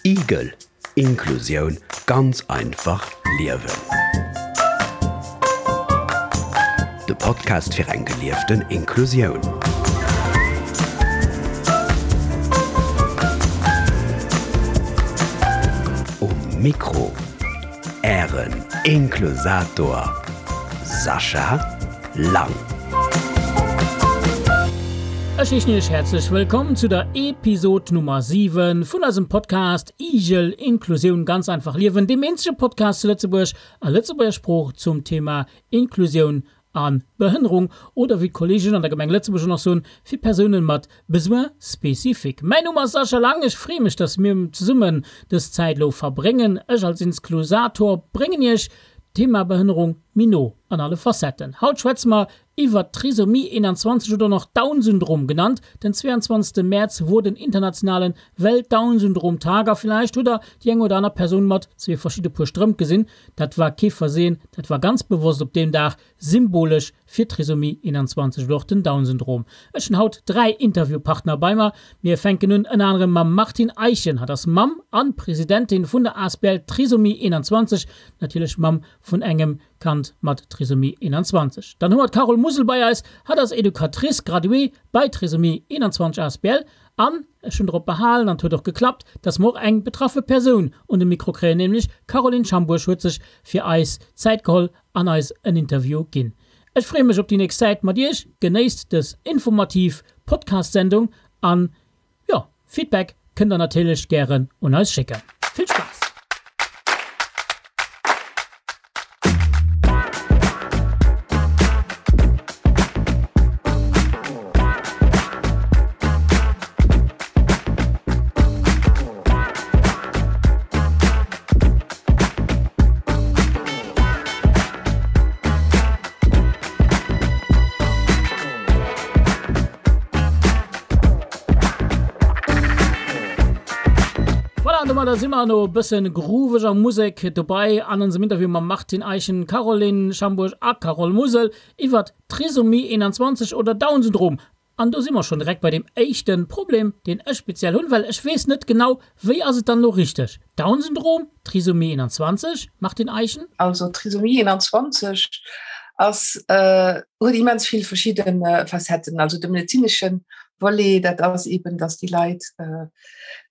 Igel, Inklusioun ganz einfach liewen. De Podcast fir eng gelieften Inklusioun. Um Mikro Ären Inklusator Sascha Lang. Ech heeschen Iech häerzlech wëllkomm zu der Episod Nummer 7 vun eisem Podcast Igel, Inklusioun ganz einfach liewen, deem eenzege Podcast zu Lëtzebuerg a Lëtzebuerger Sprooch zum Thema Inklusioun a Behënnerung oder wéi d'Kolleegen an der Gemeng Lëtzebuerg och nach soen, fir Persounen mat Besoins spécifiques. Mäin Numm ass Sascha Lang, ech freeë mech, dass mir zesummen dës Zäit elo verbréngen. Ech als Insclusator bréngen Iech d'Thema Behënnerung méi no an alle Facetten. Haut schwätze mer iwwert d'Trisomie 21 oder och Down-Syndrom genannt. Den 22 Mäerz wor den internationalen Welt-Down-Syndrom-Tag a villäicht hutt der déi eng oder aner Persoun mat zwee verschidde Puer Strëmp gesinn. Dat war kee Versehen, dat war ganz bewosst op deem Dag, symbolesch fir d'Trisomie 21 oder och den Down-Syndrom. Ech hunn haut 3 Interviewpartner bei mer. Mir fänken un ënner anerem mam Martine Eichen. Hatt ass Mamm an Presidentin vun der asbl Trisomie 21, natierlech Mamm vun engem Kand mat Trisomie 21. Dann hu mer d'Carole Musel bei eis. Hatt ass Educatrice graduée bei Trisomie 21 asbl an ech hunn drop behalen, an et huet och geklappt, dass mer och eng betraffe Persoun un de Mikro kréien, nämlech d'Caroline Schambourg huet sech fir eis Zäit geholl an eis en Interview ginn. Ech freeë mech op déi nächst Zäit mat iech. Genéisst dës informativ Podcast-Sendung an jo, Feedback kënnt der natierlech gären un eis schécken. Vill Spaass! Voilà, an domadder si mer no e bëssen grooveger Musek dobei an onsem Interview mam Martine Eischen, Caroline Schambourg a Carole Musel iwwert Trisomie 21 oder Down-Syndrom. An do si mer schonn direkt bei deem éischte Problem, deen ech speziell hunn, well ech weess net genau, wéi ass et dann elo richteg? Down-Syndrom, Trisomie 21, Martine Eischen? Also Trisomie 21 ass, huet immens vill verschidde Facetten. Also de medezinesche Volet, dat ass eben, datt déi Leit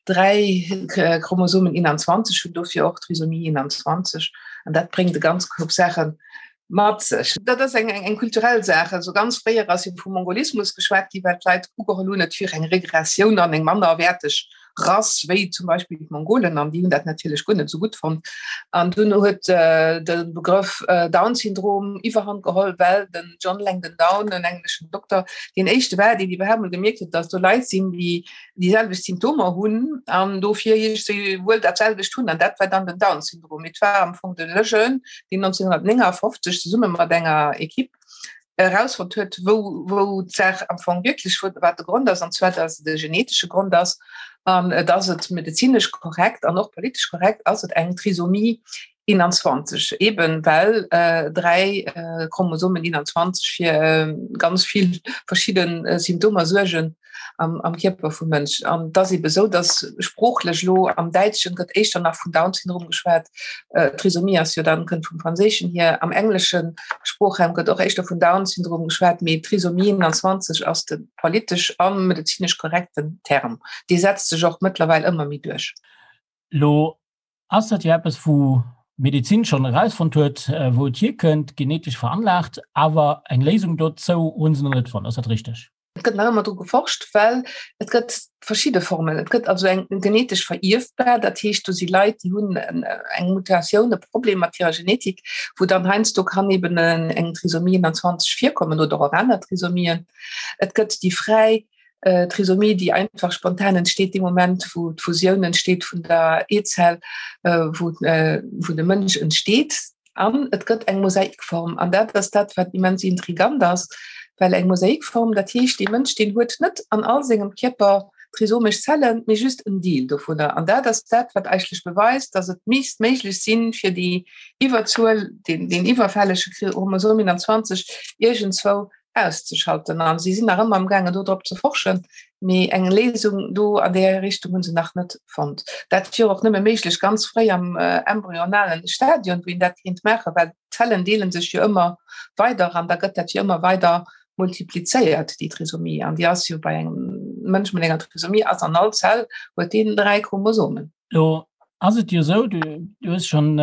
3 Chromosomen 21 hunn, dofir och Trisomie 21. An dat bréngt e ganz Koup Saache mat sech. Dat ass eng eng kulturell Saach. Also ganz fréier ass jo vum Mongolismus geschwat gi, well d'Leit ugeholl hunn, et wier eng Regressioun an eng mannerwäerteg Rass wéi zum Beispill d'Mongolen, an déi hunn dat natierlech guer net esou gutt fonnt. An dunn huet de Begrëff Down-Syndrom Iwwerhand geholl, well den John Langdon Down, en engleschen Dokter, deen éischte war, deen iwwerhaapt mol gemierkt huet, datt do Leit sinn, déi déi selwecht Symptomer hunn an dofir iergendwéi wuel dat selwecht hunn. An dat war dann den Down-Syndrom. Et war am Fong de Lejeune, deen 1959 zesumme mat enger Equipe erausfonnt huet, wou, wou d'Saach am Fong wierklech, wou, wat de Grond ass, an zwar, dass et e genetesche Grond ass an dass et medezinesch korrekt an och politesch korrekt ass, et eng Trisomie 21, eben well 3 Chromosomen 21 fir ganz vill verschidde Symptomer suergen am, am Kierper vum Mënsch. An et ass ebe sou, datt sproochlech elo am Däitschen gëtt éischter nach vun Down-Syndrom geschwat, Trisomie ass jo dann, kënnt vum Franséischen hier, am englesche Sproochraum gëtt och éischter vun Down-Syndrom geschwat, mee Trisomie 21 ass de politesch a medezinesch korrekten Term. Dee setzt sech och mëttlerweil ëmmer méi duerch. Lo Ass dat jo eppes, wou d'Medezin schonn erausfonnt huet, wou et hierkënnt, genetesch veranlaagt, awer eng Léisung dozou hu se nach net fonnt. Ass dat richteg? Et gëtt nach ëmmer dru geforscht, well et gëtt verschidde Formen. Et gëtt also eng genetesch verierfbar, dat heescht, do si Leit, déi hunn eng Mutatioun, e Problem mat hirer Genetik, wou dann heiansdo kann eben eng Trisomie 21 virkommen oder och aner Trisomien. Et gëtt déi fräi Trisomie, déi einfach spontan entsteet dee Moment, wou d'Fusioun entsteet vun der Eezell, wou wou de Mënsch entsteet. An et gëtt eng Mosaikform. An dat ass dat, wat immens intrigant ass, well eng Mosaikform, dat heescht, dee Mënsch, deen huet net an all sengem Kierper trisomesch Zellen, mee just en Deel dovunner. An dat ass dat, wat eigentlech beweist, datt et misst méiglech sinn, fir déi Iwwerzuel, deen, deen iwwerfällege Chromosom 21 iergendzwou. auszeschalten. An si sinn nach ëmmer am gaangen do drop ze forschen, mee eng Léisung do an där Richtung hunn se nach net fonnt. Dat wier och nëmme méiglech ganz fréi am embryonalen Stadion, wou een dat kéint maachen, well d'Zellen deele sech jo ëmmer weider an da gëtt dat jo ëmmer weider multiplizéiert, déi Trisomie. An déi ass jo bei engem Mënsch mat enger Trisomie ass an all Zell huet deen 3 Chromosomen. Lo ass et jo esou, du hues schonn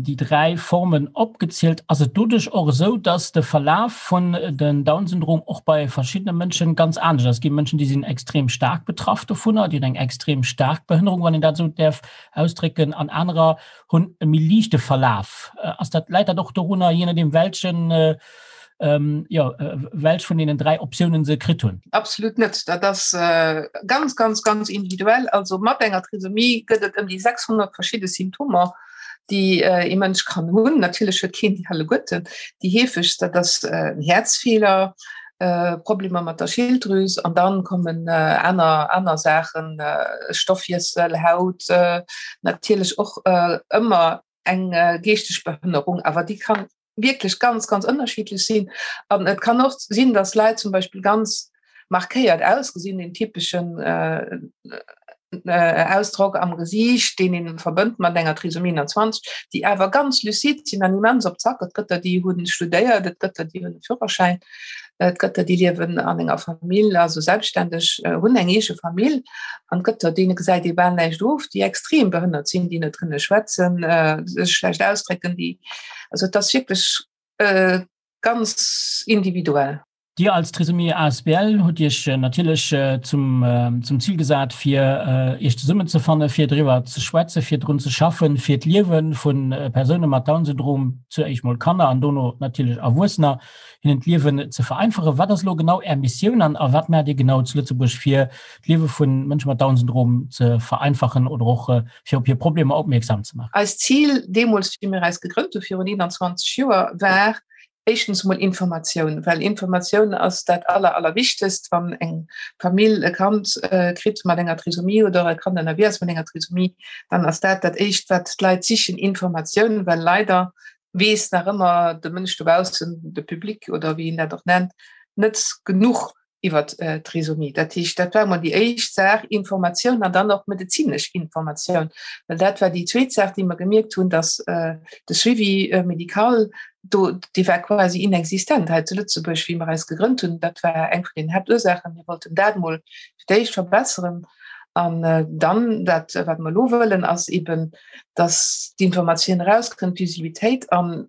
déi 3 Formen opgezielt, ass et doduerch och esou, dass de Verlaf vun den Down-Syndrom och bei verschiddene Mënschen ganz anescht ass? Et gi Mënschen, déi sinn extrem staark betraff dovunner, déi hunn eng extrem staark Behënnerung, wann een dat esou däerf ausdrécken, an anerer hunn e méi liichte Verlaf. Ass dat, läit dat och dorunner, jee nodeem welchen jo, welch vun deenen 3 Optiounen se kritt hunn? Absolut net. Dat ass ganz, ganz, ganz individuell. Also mat enger Trisomie gëtt et ëm déi 600 verschidde Symptomer, déi ee Mënsch kann hunn. Natierlech huet keen déi alleguerten. Déi heefegst, dat ass en Häerzfeeler, Problemer mat der Schilddrüs an dann kommen aner, aner Saachen, Stoffwiessel, Haut, natierlech och ëmmer eng geeschteg Behënnerung, awer déi kann wierklech ganz, ganz ënnerschiddlech sinn. An et kann och sinn, dass Leit zum Beispill ganz markéiert ausgesinn, den typeschen äh, äh, Ausdrock am Gesiicht, deen een verbënnt mat enger Trisomie 21, déi awer ganz lucide sinn an immens op Zack. Et gëtt der, déi hunn studéiert, et gëtt der, déi hunn e Führerschäin, et gëtt der, déi liewen an enger Famill, also selbstständeg, äh, hunn eng eege Famill. An et gëtt der, deene gesäit ee bal näischt of, déi extrem behënnert sinn, déi net kënne schwätzen, äh, sech schlecht ausdrécken, déi Also et ass wierklech ganz individuell. Dir als Trisomie asbl hutt Iech natierlech zum zum Zil gesat, fir Iech zesummenzefanne fir driwwer ze schwätzen, fir drun ze schaffen, fir d'Liewe vu Persoune mat Down-Syndrom, zu éischt mol Kanner an dono natierlech Erwuessener, hinnen d'Liewen ze vereinfachen. Wat ass elo genau Är Missioun an a wat maacht Dir genau zu Lëtzebuerg, fir d'Liewe vu Mënsche mat Down-Syndrom ze vereinfachen oder och fir op hir Problemer opmierksam ze maachen? Eist Zil deemools, wéi mir eis gegrënnt hu virun 21 Joer, war éischtens emol Informatioun, well Informatioun ass dat aller, allerwichtegst, wann eng Famill e Kand kritt mat enger Trisomie oder e Kand ënnerwee ass mat enger Trisomie, dann ass dat dat Éischt, wat d'Leit sichen, Informatioun, well leider weess nach ëmmer de Mënsch dobaussen, de Public oder wéi een dat och nennt, net genuch iwwer d'Trisomie. Dat heescht, dat war emol déi éischt Saach, Informatioun an dann och medezinesch Informatioun, well dat war déi zweet Saach, déi mer gemierkt hunn, dass de Suivi médical do, dee war quasi inexistent hei zu Lëtzebuerg, wéi mer eis gegrënnt hunn. Dat war eng vun den Haaptursaachen. Mir wollten dat emol fir d'éischt verbesseren an dann dat, wat mer elo wëllen, ass eben, dass d'Informatioun erauskënnt, d'Visibilitéit an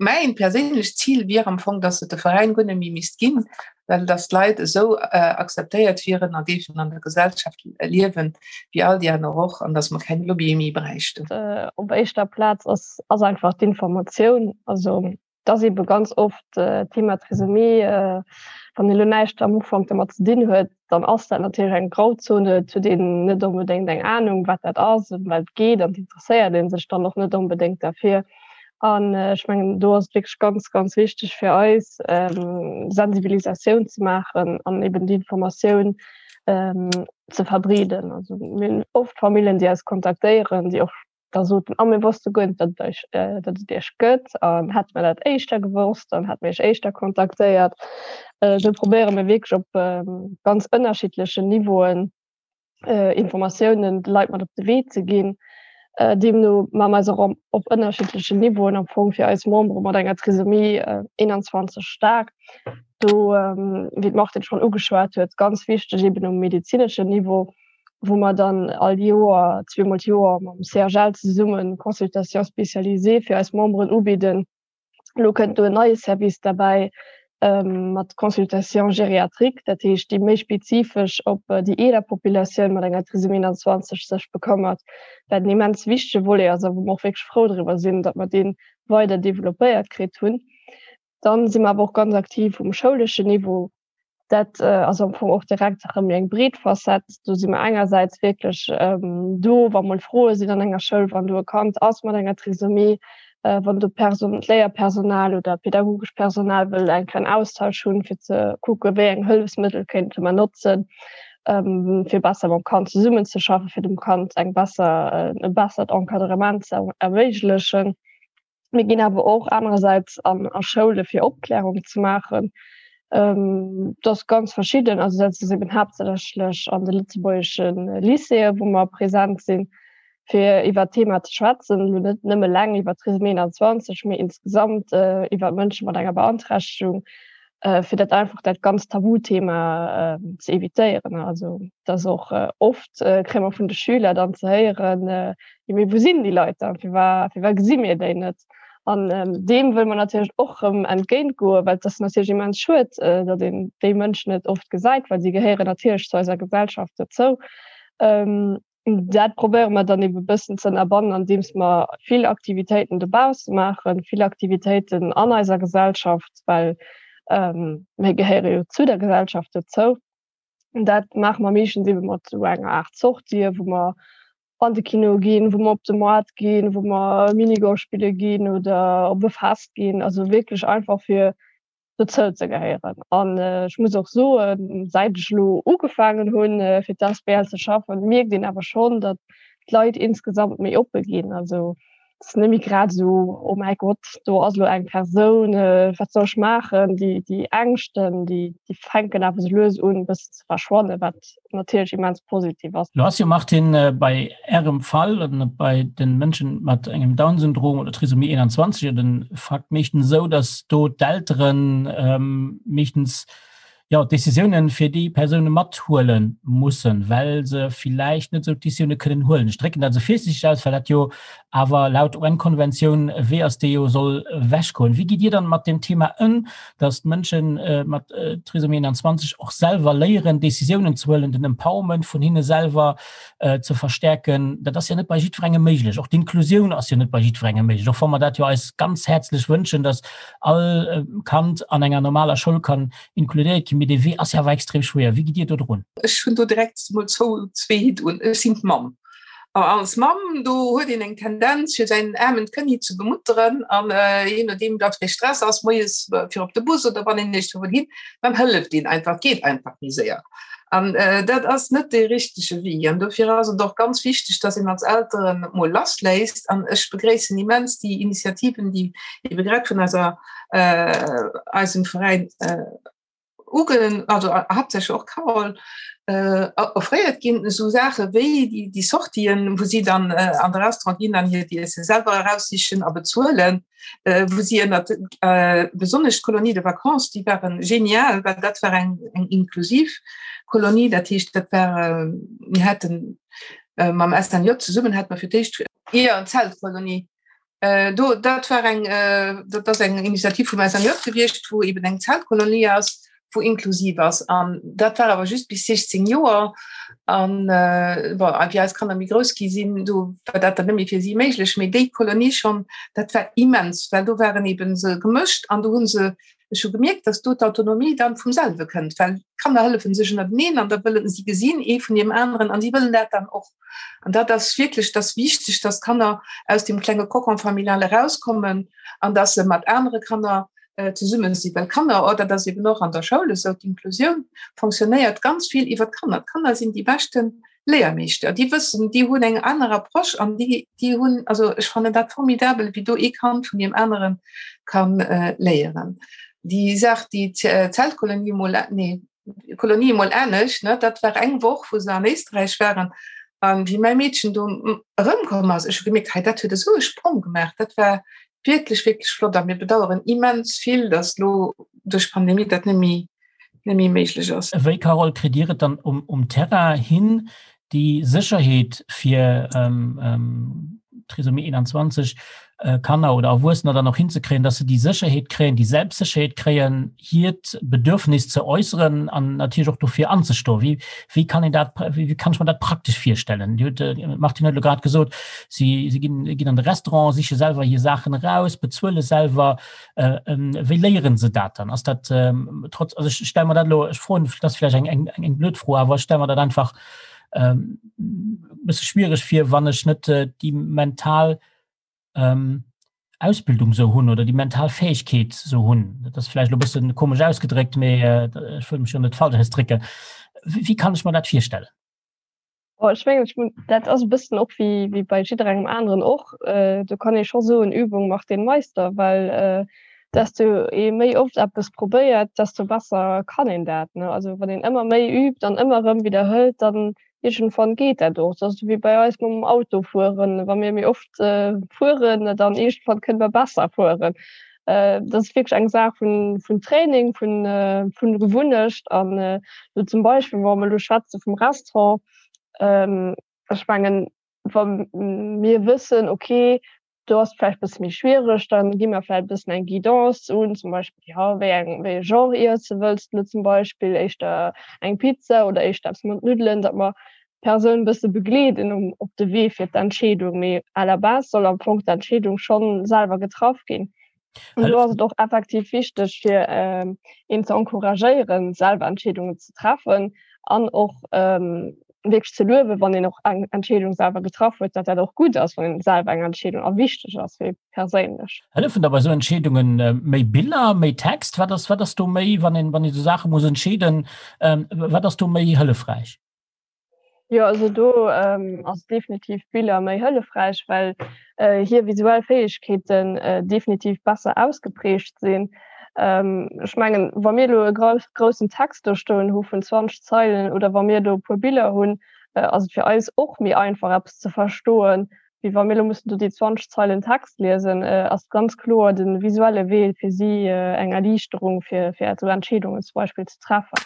Mäin perséinlecht Zil wier am Fong, dass et de Veräin guer net méi misst ginn, well dass d'Leit esou akzeptéiert wieren a géifen an der Gesellschaft liewen, wéi all déi aner och, an dass mer keng Lobbyë méi bräichten. Op éischter Plaz ass ass einfach d'Informatioun. Also et ass eebe ganz oft d'Thema Trisomie, wann ee lo näischt am Ufank domat ze dinn huet, dann ass dat natierlech eng Grauzone, et huet een net onbedéngt eng Anung, wat dat ass, ëm wat et geet an et interesséiert ee sech dann och net onbedéngt derfir. An ech mengen, do ass et wierklech ganz, ganz wichteg fir eis, Sensibilisatioun ze maachen an eben déi Informatioun ze verbreeden. Also mir hunn oft Familljen, déi eis kontaktéieren, déi och da soten, ah mir wosste guer net, datt et eis, datt et iech gëtt an hätte mer dat éischter gewosst, dann hätte mir iech éischter kontaktéiert. Esou probéiere mir wierklech op ganz ënnerschiddlechen Niveauen Informatiounen de Leit mat op de Wee ze ginn. Deemno maache mer eis och op ënnerschiddlechen Niveauen am Fong fir eis Membere mat enger Trisomie 21 staark. Do, wéi d'Martine schonn ugeschwat huet, ganz wichteg eben um medezineschen Niveau, wou mer dann all Joer, zweemol d'Joer mam CHL zesummen Consultations spécialisées fir eis Memberen ubidden. Elo kënnt do en neie Service derbäi mat Consultation gériatrique, dat heescht déi méi spezifesch op déi eeler Populatioun mat enger Trisomie 21 sech bekëmmert, wat en immens wichtege Volet ass a wou mer och wierklech frou driwwer sinn, datt mer dee weider developpéiert kritt hunn. Dann si mer awer och ganz aktiv um schouleschen Niveau. Dat ass am Fong och direkt erëm eng breet Facette. Do si mer engersäits wierklech do, wa mol Froe sinn an enger Schoul, wann do e Kand ass mat enger Trisomie, wann do Person, d'Léierpersonal oder pädagogescht Personal wëll eng kleng Austausch hunn, fir ze kucke wéi eng Hëllefsmëttel kéinte mer notzen, fir besser mam Kand zesummenzeschaffen, fir dem Kand eng besser, e bessert Encadrement ze erméiglechen. Mir ginn awer och anerersäits an a Schoule fir Opklärung ze maachen. Dat ass ganz verschidden, also dat ass eben haaptsächlech an de lëtzebuergesche Lycéeë wou mer present sinn, fir iwwer d'Thema ze schwätzen, elo net nëmme eleng iwwer Trisomie 21, mee insgesamt iwwer Mënsche mat enger Beanträchtegung, fir dat einfach dat ganzt Tabuthema ze evitéieren. Also dat ass och oft kréie mer vun de Schüler dann ze héieren, jo mee wou sinn déi Leit dann, firwat firwat gesi mir déi net? An deem wëlle mer natierlech och erëm entgéint goen, well et ass natierlech immens schued, datt een déi Mënschen net oft gesäit, well si gehéieren natierlech zu eiser Gesellschaft dozou. Dat probéiere mer dann ebe bëssen ze ënnerbannen, andeems mer vill Aktivitéiten dobausse maachen, vill Aktivitéiten an eiser Gesellschaft, well mir gehéiere jo zu der Gesellschaft dozou. Dat maache mer meeschtens ebe mat esou enger Aart Sortie, wou mer an de Kino ginn, wou mer op de Moart ginn, wou mer Minigolf spille ginn oder op e Fest ginn. Also wierklech einfach fir dozou ze gehéieren. An ech muss och soen, säit ech elo ugefaangen hunn, fir d'asbl ze schaffen, mierkt een awer schonn, datt d'Leit insgesamt méi oppe ginn. Also et ass net méi grad esou, oh mäi Gott, do ass elo eng Persoun, wat soll ech maachen? Déi, déi Ängschten, déi, déi fänken awer esou lues un e bëssen ze verschwannen, wat natierlech immens positiv ass. Lo ass jo, Martine, bei Ärem Fall oder bei de Mënschen mat engem Down-Syndrom oder Trisomie 21 jo de Fakt meeschtens esou, datt do d'Eltere meeschtens jo d'Décisiounen fir déi Persoune mathuele mussen, well se villäicht net esou d'Décisioune kënnen huelen. Ech drécken dat esou virsiichteg aus, well dat jo awer laut UN-Konventioun e Wee ass, dee jo soll ewechgoen. Wéi gitt Dir dann mat deem Thema ëm, dass d'Mënsche mat Trisomie 21 och selwer léieren, Décisiounen ze huelen, den Empowerment vun hinne selwer ze verstärken? Dat ass jo net bei jiddwerengem méiglech. Och d'Inklusioun ass jo net bei jiddwerengem méiglech, och wa mer dat jo eis ganz häerzlech wënschen, dass all Kand an enger normaler Schoul kann inkludéiert ginn. Mee dee Wee ass jo awer extrem schwéier. Wéi gitt Dir do drun? Ech hunn do direkt emol zwou, zwee Hitt un. Ech sinn d'Mamm. A als Mamm, do huet een eng Tendenz, fir säin aarmen Kënni ze bemutteren an jee nodeem wat fir Stress ass, moies fir op de Bus oder wann een iergendwou wëll hin, dann hëlleft een einfach, et geet einfach méi séier. An dat ass net dee richtege Wee. An dofir ass et och ganz wichteg, dass een als Elteren mol lassléisst. An ech begréissen immens déi Initiativen, déi ebe grad vun eiser, eisem Veräin uge also haaptsächlech och Carole offréiert ginn, esou Saache wéi déi, déi Sortien, wou si dann an de Restaurant ginn an hiert Iesse selwer eraussichen a bezuelen, wou si ënnert besonnesch d'Colonie de vacances, déi ware genial, well dat war eng eng inklusiv Kolonie, dat heescht dat war, mir haten mam SNJ zesummen hate mer fir d'éischt, jo, Zeltkolonie. Do, dat war eng, dat ass eng Initiativ vum SNJ gewiescht, wou eben eng Zeltkolonie ass, wou inklusiv ass. An dat war awer just bis 16 Joer. An bon, a wéi eis Kanner méi grouss gi sinn, do war dat dann net méi fir si méiglech. Mee déi Kolonie schonn, dat war immens, well do waren eben se gemëscht an do hu se, ech hu gemierkt, dass do d'Autonomie dann vum selwe kënnt, well d'Kanner hëllefen sech ënnerteneen an da wëllen si gesinn ee vun deem aneren an si wëllen dat dann och. An dat ass wierklech, dat ass wichteg, dass d'Kanner aus dem klenge Cocon familial erauskommen an dass se mat anere Kanner zesumme sinn. Well Kanner, oh dat ass eben och an der Schoul esou, d'Inklusioun fonctionnéiert ganz vill iwwer d'Kanner. D'Kanner sinn déi beschte Léiermeeschter. Déi wëssen, déi hunn eng aner Approche an déi, déi hunn, also ech fannen dat formidabel, wéi do ee Kand vun deem anere ka léieren. Déi Saach, déi Zeltkolonie mol, nee, Kolonie emol anescht, ne? Dat war eng Woch, wou se an Éisträich waren. An wéi mäi Meedchen do erëmkomm ass, ech hu gemierkt, hei dat huet esou e Sprong gemaach. Dat war wierklech, wierklech flott. A mir bedaueren immens vill, datt elo duerch d'Pandemie dat net méi, net méi méiglech ass. Wéi, Carole, kritt Dir et dann um, um Terrain hin, déi Sécherheet fir Trisomie 21 Kanner oder Erwuessener dann och hinzekréien, dass se déi Sécherheet kréien, déi Selbstsécherheet kréien, hiert Bedürfnis ze äusseren an natierlech och dofir anzestoen. Wéi, wéi kann een dat, wéi kann ech mer dat praktesch virstellen? Dir hutt, d'Martine huet elo grad gesot, si, si ginn, ginn an de Restaurant, siche selwer hir Saachen eraus, bezuele selwer. Wéi léiere se dat dann? Ass dat trotz, also ech stelle mer dat elo, ech froen, dat ass vläicht eng, eng, eng blöd Fro, awer ech stelle mer dat einfach e bësse schwiereg vir, wann ech net déi mental Ausbildung esou hunn oder déi mental Fäegkeet esou hunn. Dat ass vläicht elo e bësse komesch ausgedréckt, mee ech wëll mech jo net falsch ausdrécken. Wéi kann ech mer dat virstellen? Oh, ech mengen, ech mun, dat ass e bëssen och wéi, wéi bei jidderengem aneren och. Äh, do kann ee scho soen, Übung macht den Meister, well äh, Desto ee méi oft eppes probéiert, desto besser kann een dat, ne? Also wann een ëmmer méi übt an ëmmer erëm widderhëlt, dann iergendwann geet dat och. Dat ass esou wéi bei eis mam Autofueren, wa mir méi oft fueren, dann iergendwann kënne mer besser fueren. Dat ass wierklech eng Saach vun, vun Training, vun, vun Gewunnecht. An elo zum Beispill, wa mer elo schwätze vum Restaurant, ech mengen, wa mir wëssen, okay, do ass et vläicht e bësse méi schwiereg, da gi mer vläicht e bëssen eng Guidance un, zum Beispill, jo, wéi eng, wéi e Genre Iesse wëlls de zum Beispill, éischter eng Pizza oder éischter eppes mat Nuddelen, datt mer d'Persoun e bësse begleeden um, op de Wee fir d'Entscheedung. Mee à la base soll am Fong d'Entscheedung schonn selwer getraff ginn. An do ass et och effektiv wichteg, fir een ze encouragéieren, selwer Entscheedungen ze treffen an och wierklech ze luewen, wann een och eng Entscheedung selwer getraff huet, datt dat och gutt ass, wann een selwer eng Entscheedung a wichteg ass fir ee perséinlech. Hëllefen da bei esou Entscheedungen méi Biller, méi Text? Wat ass, wat ass do méi, wann een, wann ee sou Saache muss entscheeden, wat ass do méi hëllefräich? Jo, also do ass definitiv Biller méi hëllefräich, well hir visuell Fäegkeeten definitiv besser ausgeprägt sinn. Ech mengen, wa mir elo e groussen Text do stoen hu vun 20 Zeilen oder wa mir do e puer Biller hunn, ass et fir eis och méi einfach eppes ze verstoen, wéi wa mir elo mussen do déi 20 Zeilen Text liesen. Ass ganz kloer de visuelle Wee fir si eng Erliichterung, fir esou Entscheedungen zum Beispill ze treffen.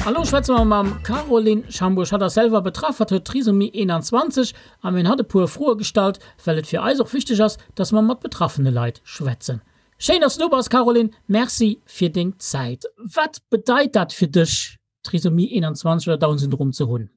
A lo schwätze mer mam Caroline Schambourg. Hatt ass selwer betraff, hatt huet Trisomie 21 a mir hunn hatt e puer Froe gestallt, well et fir eis och wichteg ass, dass mer mat betraffene Leit schwätzen. Schéin, dass du do bass, Caroline. Merci fir deng Zäit. Wat bedeit dat fir dech, Trisomie 21 oder Down-Syndrom ze hunn?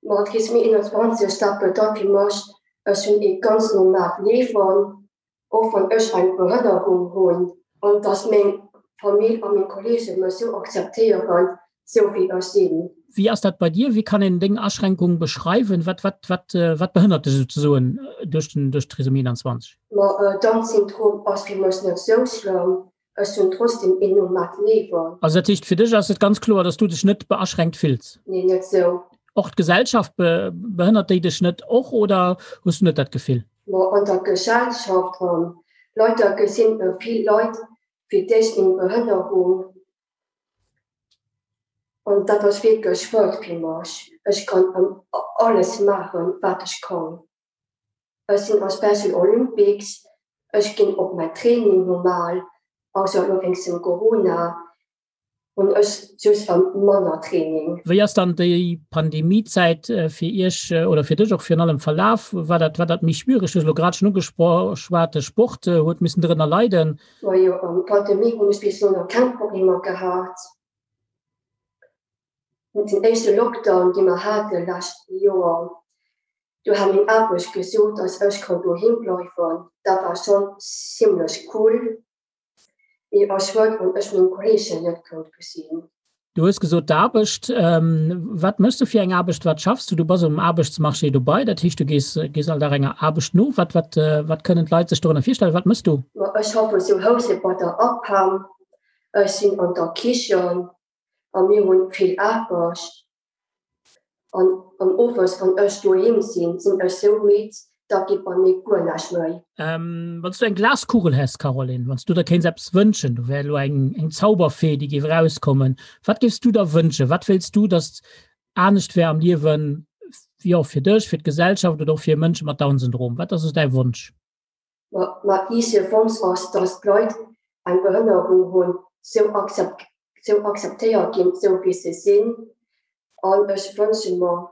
Ma Trisomie 21, dat bedeit fir mech, ech hunn ee ganz normaalt Liewen, och wann ech eng Behënnerung hunn, an dass meng Famill a meng Kolleege mech sou akzeptéieren, sou wéi ech sinn. Wéi ass dat bei dir? Wéi kann een deng Aschränkung beschreiwen? Wat, wat, wat, wat behënnert dech souzesoen duerch den, duerch d'Trisomie 21? Ma Down-Syndrom ass fir mech net sou schlëmm. Ech hunn trotzdem een normaalt Liewen. Also dat heescht, fir dech ass et ganz kloer, dass du dech net beaschränkt fills? Nee, net sou. Och d'Gesellschaft, behënnert déi dech net och oder hues du net dat Gefill? Ma an der Gesellschaft, leider gesinn vill Leit fir d'éischt meng Behënnerung an dat ass wierklech schued fir mech. Ech kann alles maachen, wat ech kann. Ech sinn a Special Olympics, ech ginn op mäi Training normal, ausser elo wéinst dem Corona hunn ech just manner Training. Wéi ass dann déi Pandemiezäit fir Iech oder fir dech och virun allem verlaf? War dat, war dat méi schwiereg? Du hues elo grad schonn ugeschwat, de Sport huet missen drënner leiden. Majo, an Pandemie hunn ech bis elo nach keng Problemer gehat. Den éischte Lockdown, dee mer hate lescht Joer, do hat meng Aarbecht gesot, dass ech kann doheem bleiwen. Dat war schonn zimmlech cool, mee a schued, wann ech meng Kolleegen net konnt gesinn. Du hues gesot d'Aarbecht. Wat méchs du fir eng Aarbecht? Wat schaffs du? Du bass um Aarbechtsmarché dobei, dat heescht du gees, gees all Dag enger Aarbecht no. Wat, wat, wat kënnen d'Leit sech dorënner virstellen? Wat méchs du? Ma ech schaffen zu Housen bei der APEM. Ech sinn an der Kichen a mir hunn vill Aarbecht an an owes wann ech doheem sinn, sinn ech sou midd, da geet bei mir guer näischt méi. Wann s du eng Glaskugel häss, Caroline, wann s du der kéints eppes wënschen, do wär elo eng eng Zauberfee, déi géif erauskommen, wat géifs du der wënschen? Wat wéilts du, datt anescht wär am Liewen, jo fir dech, fir d'Gesellschaft oder och fir Mënsche mat Down-Syndrom? Wat ass esou däi Wonsch? Ma eise Wonsch ass, dass d'Leit eng Behënnerung hunn, sou akzeptéiert ginn, sou wéi se sinn. An ech wënsche mer,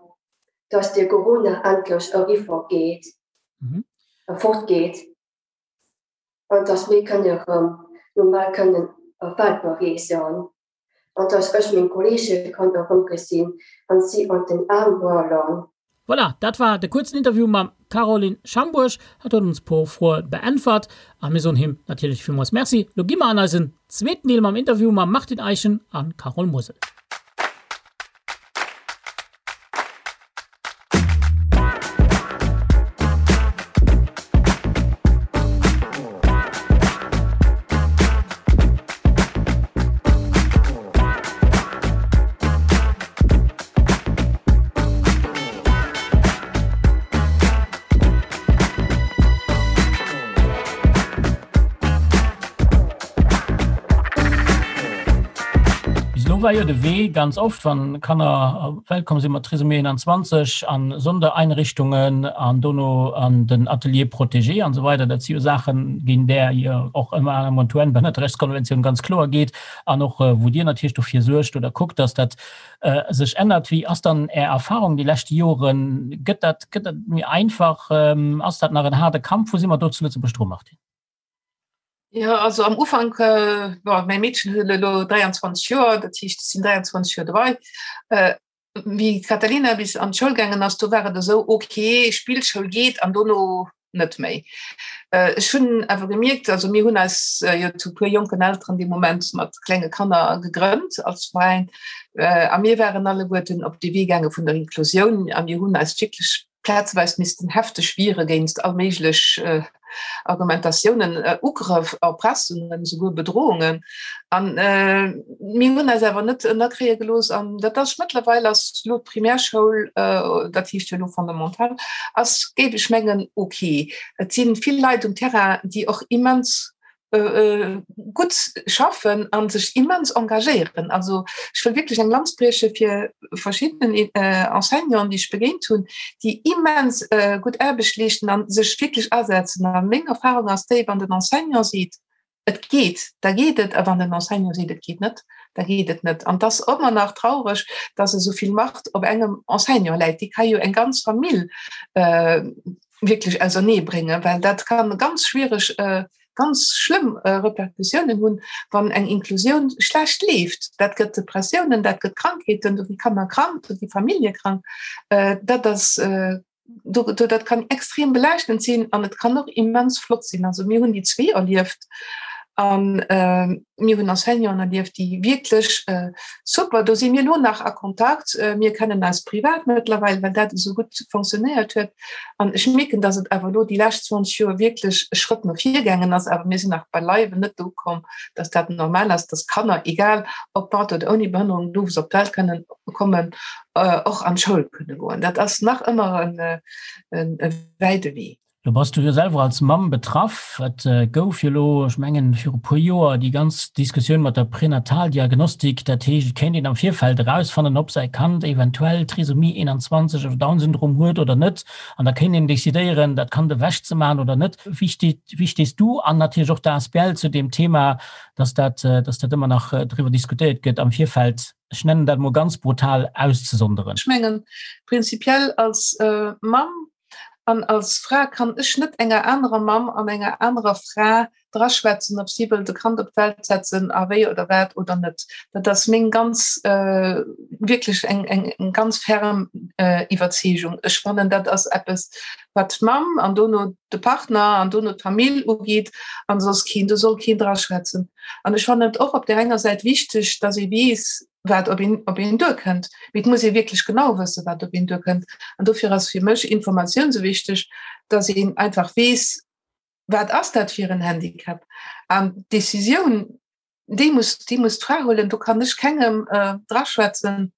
dass de Corona endlech eriwwer geet, fortgeet an dass mir kënne erëm normal kënnen Welt bereesen an dass ech meng Kolleege kann erëmgesinn an si an den Aarm huelen. Voilà, dat war de kuerzen Interview mam Caroline Schambourg. Hat huet ons puer Froe beäntwert a mir soen him natierlech villmools Merci. Lo gi mer an eisen zweeten Deel mam Interview mam Martin Eischen a Carole Mosel. Bis elo war jo de Wee ganz oft, wann Kanner op d'Welt komm sinn mat Trisomie 21 an Sondereinrichtungen an dono an den Atelier protégé an esou weider, dat si jo Saachen, géint där jo och ëmmer aner mol d'UN-Behënnerterechtskonventioun ganz kloer geet an och wou Dir natierlech dofir suergt oder kuckt, dass dat sech ännert. Wéi ass dann Är Erfahrung déi lescht Joren? Gëtt dat, gëtt dat méi einfach? Ass dat nach en haarde Kampf? Wou si mer do zu Lëtzebuerg dru, Martine? Jo, also am Ufank, bon, mäi Meedchen huet elo 23 Joer, dat heescht, ech sinn 23 Joer dobei. Wéi d'Catalina bis an d'Schoul gaangen ass, do war et esou, ok, Spillschoul geet an dono net méi. Ech hunn awer gemierkt, also mir hunn eis jo zu puer jonken Elteren dee Moment mat klenge Kanner gegrënnt als Veräin a mir waren alleguerten op de Wee gaange vun der Inklusioun a mir hunn eis wierklech plazeweis missten hefteg wiere géinst all méiglech Argumentatiounen, Ugrëff, Erpressungen, souguer Bedrohungen. An mir hunn eis awer net ënnerkréie gelooss. An dat ass mëttlerweil ass elo d'Primärschoul, dat heescht jo elo Fondamental, ass, géif ech mengen, ok. Et si vill Leit um Terrain, déi och immens gutt schaffen a sech immens engagéieren. Also ech wëll wierklech eng Lanz brieche fir verschidden Enseignanten, déi ech begéint hunn, déi immens gutt Aarbecht leeschten a sech wierklech asetzen. A meng Erfahrung ass déi, wann den Enseignant seet, et geet, da geet et, a wann den Enseignant seet, et geet net, da geet et net. An et ass ëmmer nach traureg, dass esou vill Macht op engem Enseignant läit. Dee ka jo eng ganz Famill wierklech ausernee bréngen, well dat kann ganz schwiereg, ganz schlëmm Repercussiounen hunn, wann eng Inklusioun schlecht leeft. Dat gëtt Depressiounen, dat gëtt Krankheeten, do gi Kanner krank, do gi Famillje krank. Dat ass, do, dat kann extrem belaaschtend sinn an et kann och immens flott sinn. Also mir hunn déi zwee erlieft an mir hunn Enseignanten erlieft, déi wierklech super, do si mir elo nach a Kontakt, mir kennen eis privat mëttlerweil, well dat esou gutt fonctionnéiert huet. An ech mierken, datt et awer elo déi lescht 20 Joer wierklech e Schrëtt no vir gaangen ass, awer mir sinn nach beileiwen net do ukomm, datt dat normal ass, datt Kanner, egal ob mat oder ouni Behënnerung, do wou se op d'Welt kënnen kommen, och an d'Schoul kënne goen. Dat ass nach ëmmer e wäite Wee. Lo bass du jo selwer als Mamm betraff. Et gouf jo lo, ech mengen viru puer Joer, déi ganz Diskussioun mat der Pränataldiagnostik. Dat heescht, et kéint een am Virfeld erausfannen, ob säi Kand eventuell Trisomie 21 oder Down-Syndrom huet oder net. An da kéint een decidéieren, dat Kand ewechzemaachen oder net. Wéi steet, wéi stees du an natierlech och d'ASBL zu deem Thema, dass dat, dass dat ëmmer nach driwwer diskutéiert gëtt am Virfeld, ech nennen dat emol ganz brutal, auszesonderen? Ech mengen, prinzipiell als Mamm An als Fra kann ech net enger anerer Mamm an enger anerer Fra draschwätzen, ob si wëllt e Kand op d'Welt setzen a wéi oder wat oder net. Dat ass meng ganz, wierklech eng, eng, eng ganz ferm Iwwerzeegung. Ech fannen, dat ass eppes, wat d'Mamm an dono de Partner an dono d'Famill ugeet an soss keen. Do soll keen draschwätzen. An ech fannen et och op där enger Säit wichteg, dass ee weess, wat op een, op een duerkënnt. Mee et muss ee wierklech genau wëssen, wat op een duerkënnt. An dofir ass fir mech Informatioun esou wichteg, dass een einfach weess, wat ass dat fir en Handicap. An d'Decisioun, déi muss, déi muss d'Fra huelen. Do kann ech kengem äh, draschwätzen.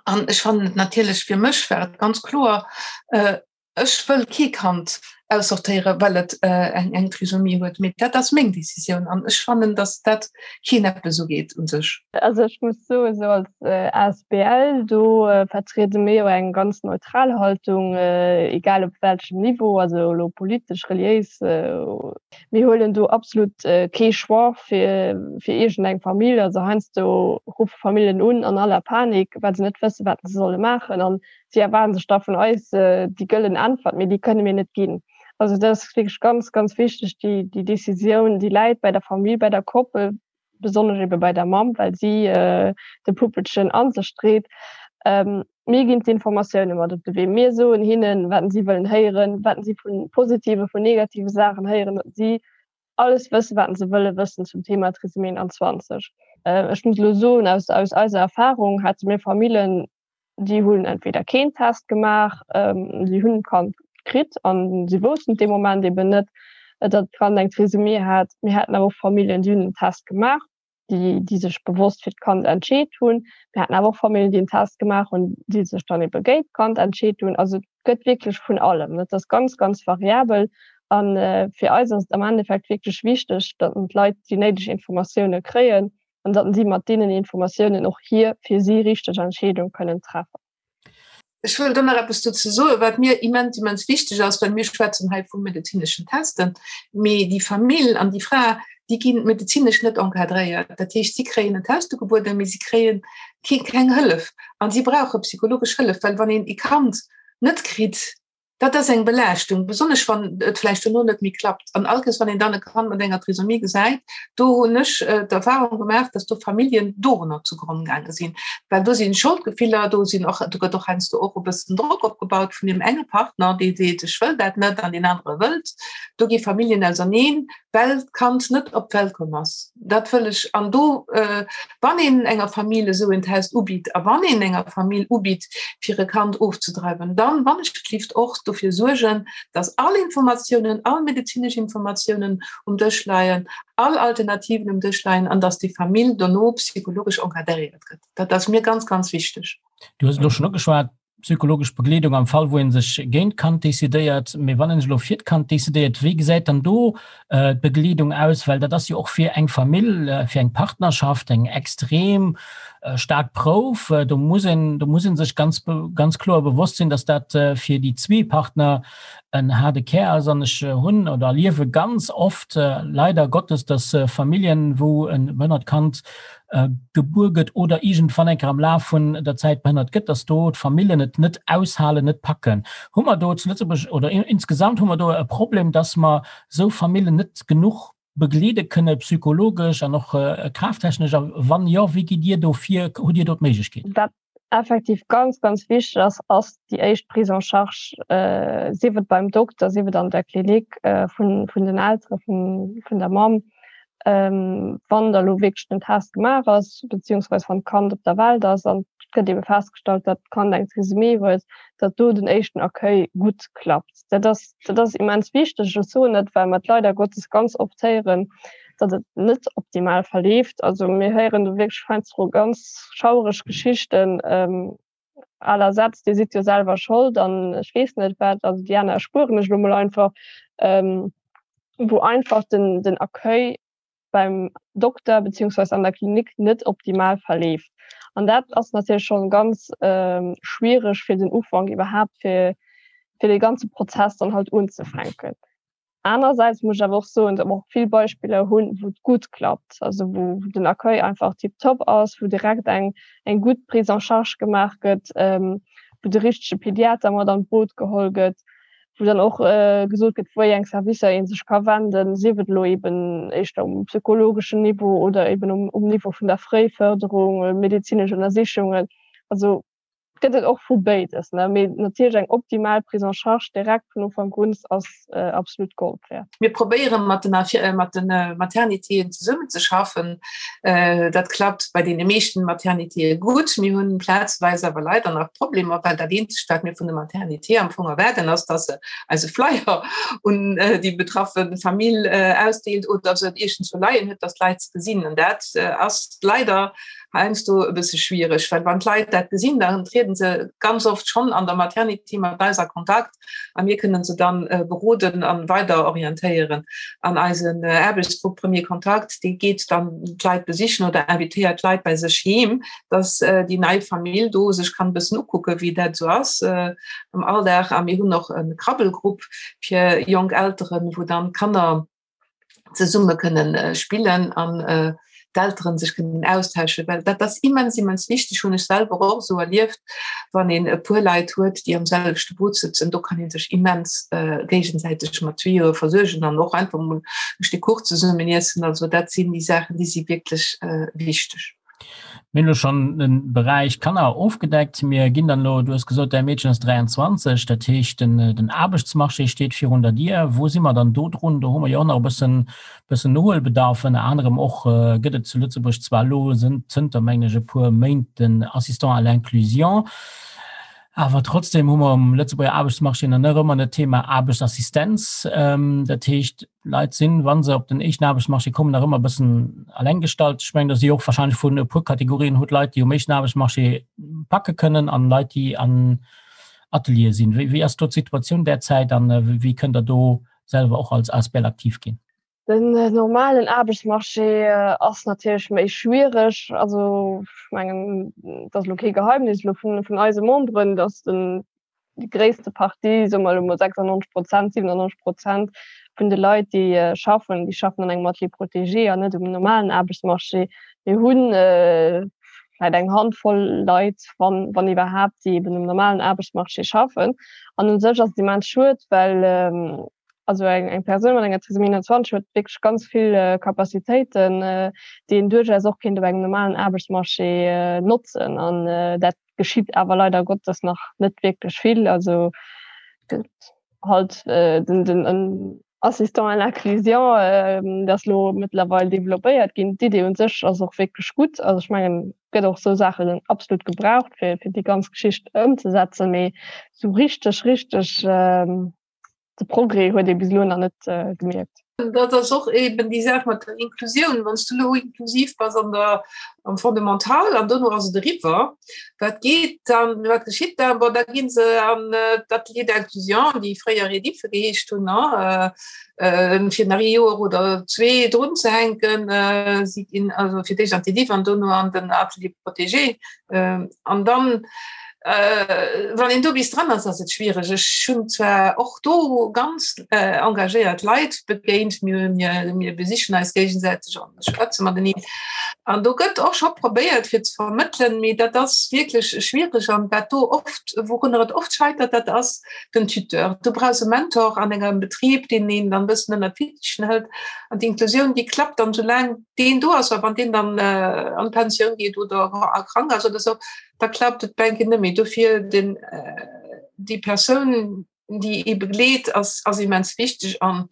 An ech fannen et natierlech, fir mech war et ganz kloer, äh, Ech wëll kee Kand aussortéieren, well et eng Trisomie huet, mee dat ass meng Decisioun an ech fannen, datt dat keen eppes ugeet u sech. Also ech muss soen, esou als asbl, do vertriede mir jo eng ganz neutral Haltung, egal op welchem Niveau, also elo politesch, reliéis, mir huelen do absolut kee Choix fir fir iergendeng Famill. Also heiansdo ruffe Familljen un an aller Panik, well se net wësse wat se solle maachen an Si erwaarden sech da vun eis déi gëllen Äntwert, mee déi kënne mir net ginn. Also dat ass wierklech ganz, ganz wichteg, déi, déi Decisioun, déi läit bei der Famill, bei der Koppel, besonnesch ebe bei der Mamm, well si de Puppelchen a sech dréit. Mir ginn d'Informatioune mat op de Wee. Mir soen hinnen, wat si wëllen héieren, wat si vu positive, vun negative Saachen héieren, datt si alles wëssen, wat se wëlle wëssen zum Thema Trisomie 21. Ech muss elo soen, aus, aus eiser Erfahrung hate mir Famillen, déi hunn entweder keen Test gemaach, si hunn d'Kand kritt an si woussten dee Moment eben net, datt d'Kand eng Trisomie hat. Mir haten awer och Familljen, déi hunn den Test gemaach. déi, déi sech bewosst fir d'Kand entscheet hunn. Mir haten awer och Familljen, déi en Test gemaach hunn, déi sech dann ebe géint d'Kand entscheet hunn. Also et gëtt wierklech vun allem. Dat ass ganz, ganz variabel. A fir eis ass et am Endeffekt wierklech wichteg, datt d'Leit déi néideg Informatioune kréien an datt si mat deenen Informatiounen och hir fir si richteg Entscheedung kënnen treffen. Ech wëll do nach eppes dozou soen, wat mir immens, immens wichteg ass, well mir schwätzen hei vu medezineschen Testen, mee déi Famill an déi Fra, déi gi medezinesch net encadréiert. Dat heescht, si kréien en Test ugebueden, mee si kréie keng Hëllef a si brauche psychologesch Hëllef, well wann een e Kand net kritt, Dat ass eng Belaaschtung, besonnesch wann et vläicht dono net méi klappt. An all Kéiers, wann een dann e Kand mat enger Trisomie gesäit, do hunn ech d'Erfahrung gemaach, dass do Familljen dorunner zugronn gaange sinn. Well do si Scholdgefiller, do sinn och, do gëtt och heiansdo och e bëssen Drock opgebaut vun deem enge Partner, dee seet, ech wëll dat net an deen anere wëllt. Do gi Familljen auserneen, well d'Kand net op d'Welt komm ass. Dat wëll ech an do wann een enger Famill esou en Test ubitt a wann een enger Famill ubitt fir e Kand ofzedreiwen, dann wann ech gelift och dofir suergen, dass all Informatiounen, all medezinesch Informatiounen um Dësch leien, all Alternativen um Dësch leien an dass déi Famill dono psychologesch encadréiert gëtt. Dat ass mir ganz, ganz wichteg. Du hues elo schonn ugeschwat, Psychologesch Begleedung am Fall wou een sech géint d'Kand decidéiert. Mee wann een sech elo fir d'Kand decidéiert, wéi gesäit dann do d'Begleedung aus? Well dat ass jo och fir eng Famill, fir eng Partnerschaft eng extrem staark Prouf. Do muss een, do muss een sech ganz, ganz kloer bewosst sinn, datt dat fir déi zwee Partner en haarde Kär ass. An ech hunn oder erliewe ganz oft leider Gottes, datt Familljen, wou e behënnert Kand gebuer gëtt oder iergendwann eng Kéier am Laf vun der Zäit behënnert gëtt, dass do d'Famillen et net aushalen, net packen. Hu mer do zu Lëtzebuerg oder insgesamt hu mer do e Problem, dass mer esou Famillen net genuch begleede kënne psychologesch an och kraaftechnesch? A wann jo, wéi gitt Dir do vir? Hutt Dir do d'Méiglechkeet? Wat effektiv ganz, ganz wichteg ass, ass déi éischt Prise en charge, sief et beim Dokter, sief et an der Klinik vun den Eltere vun der Mamm, wann da lo wierklech den Test gemaach ass, beziehungsweise wann d'Kand op der Welt ass an et gëtt ebe festgestallt, datt d'Kand eng Trisomie huet, datt do den éischten Accueil gutt klappt. Dat ass, dat ass immens wichteg. Ech soen dat, well mer et leider Gottes ganz oft héieren, datt et net optimal verleeft. Also mir héieren do wierklech heiansdo ganz schauereg Geschichten à la Sätz, Dir sidd jo selwer Schold an ech weess net wat. Also déi aner erspueren ech elo mol einfach, wou einfach den, den Accueil beim Dokter beziehungsweise an der Klinik net optimal verleeft. An dat ass natierlech schonn ganz schwiereg fir den Ufank iwwerhaapt fir fir dee ganze Prozess dann halt unzefänken. Anersäits muss ech awer och soen, datt mer och vill Beispiller hunn, wou et gutt klappt, also wou den Accueil einfach tiptop ass, wou direkt eng eng gutt Prise en charge gemaach gëtt, wou de richtege Pediater mat an d'Boot geholl gëtt, wou dann och gesot gëtt, wéi eng Servicer ee sech ka wenden, sief et elo eben éischter um psychologeschen Niveau oder eben um, um Niveau vun der Fréifërderung, medezinesch Ënnersichungen. Also gëtt et och vu béides, ne? Mee natierlech eng optimal Prise en charge direkt vun Ufank un ass absolut Gold wäert. Mir probéiere mat den, mat de Maternitéen zesummenzeschaffen. Dat klappt bei deene meeschten Maternitéë gutt. Mir hunn plazweis awer leider nach Problemer, well dat eenzegt, wat mir vun de Maternité am Fong erwaarden, ass, dass se eise Flyer un déi betraffe Famill ausdeelt oder se et iergendzwou leien huet, dass d'Leit se gesinn. An dat ass leider heiansdo e bësse schwiereg, well wann d'Leit dat gesinn, dann trieden se ganz oft schonn an der Maternité mat eis a Kontakt. a mir kënnen se dann beroden an weider orientéieren. An eisen Aarbechtsgrupp Premier Kontakt, dee geet dann d'Leit besichen oder invitéiert d'Leit bei sech heem, dass déi nei Famill do sech kann e bëssen ukucken, wéi dat esou ass am Alldag. A mir hunn och e Krabbelgrupp fir jonk Elteren, wou dann d'Kanner zesumme kënnen äh, spillen an äh, d'Elteren sech kënnen austauschen, well dat ass immens immens wichteg, hunn ech selwer och esou erlieft, wann een e puer Leit huet, déi am selwechte Boot sëtzen, do kann een sech immens äh, géigesäiteg mat Tuyauxe versuergen an och einfach mol e Stéck Kuch zesummen iessen. Also dat sinn déi Saachen, déi si wierklech äh, wichteg. Mir hunn elo schonn de Beräich Kanner ofgedeckt. Mir ginn dann elo, du hues gesot, däi Meedchen ass 23, dat heescht den, den Aarbechtsmarché steet virun der Dier. Wou si mer dann do drun? Do hu mer jo och nach e bëssen, bëssen Nohuelbedarf. Ënner anerem och gëtt et zu Lëtzebuerg zwar elo zënter, mengen ech, e puer Méint den Assistant à l'inclusion, awer trotzdem hu mer um Lëtzebuerger Aarbechtsmarché nach net ëmmer dat Thema Aarbechtsassistenz. Dat heescht, Leit sinn, wa se op den éischten Aarbechtsmarché kommen, nach ëmmer e bëssen alleng gestallt. Ech mengen, do si och wahrscheinlech vun e puer Kategorien hutt Leit, déi um éischten Aarbechtsmarché packe kënnen an Leit, déi an Ateliere sinn. Wéi, wéi ass do d'Situatioun derzäit an wéi kënnt Der do selwer och als Asbl aktiv ginn? Den normalen Aarbechtsmarché ass natierlech méi schwiereg. Also ech mengen, et ass elo kee Geheimnis elo vun, vun eise Memberen, datt den déi gréisste Partie, soe mer elo mol 96 Prozent, 97 Prozent vun de Leit, déi schaffen, déi schaffen an engem Atelier protégé an net um normalen Aarbechtsmarché. Mir hu vläicht eng Handvoll Leit, wann, wann iwwerhaapt, déi eben um normalen Aarbechtsmarché schaffen. An u sech ass et immens schued, well also eng, eng Persoun mat enger Trisomie 21 huet wierklech ganz vill Capacitéiten, déi een duerchaus och kéint op engem normalen Aarbechtsmarché notzen. An dat geschitt awer leider Gottes nach net wierklech vill. Also gëtt halt äh, den, den en Assistant à l'inclusion, äh, dat ass lo mëttlerweil developpéiert ginn. D'Idee un sech ass och wierklech gutt. Also ech mengen, gëtt och sou Saachen absolut gebraucht, fir, fir déi ganz Geschicht ëmzesetzen, mee sou richteg, richteg äh, de Progrès huet ee bis elo nach net äh, gemierkt. Dat ass och eben déi Saach mat der Inklusioun. Wann du lo inklusiv bass an der am Fondamental an dono ass et eriwwer, wat geet dann, wat geschitt dann? Bon, da ginn se an äh, d'Atelier d'inclusion, déi fréier Redife geheescht hunn, ne? Äh, fir nach ee Joer oder zwee drun ze hänken. Äh, si ginn also fir d'éischt an d'Ediff an dono an den Atelier protégé. An dann, wann een do bis dran ass, ass et schwiereg. Ech hunn zwar och do ganz engagéiert Leit begéint, mir, mir, mir besichen eis géigesäiteg an schwätze mateneen. An do gëtt och scho probéiert fir ze vermëttelen, mee dat ass wierklech schwiereg. An wat do oft, wourunner et oft scheitert, dat ass den Tuteur. Du brauchs e Mentor an engem Betrib, deen een dann e bëssen ënner d'Fittichen hëlt. An d'Inklusioun, déi klappt dann, soulaang deen do ass, a wann deen dann äh, an d'Pensioun geet oder krank ass oder so, da klappt et bänke net méi. Dofir den, äh, déi Persoun, déi ee begleet, ass, ass immens wichteg an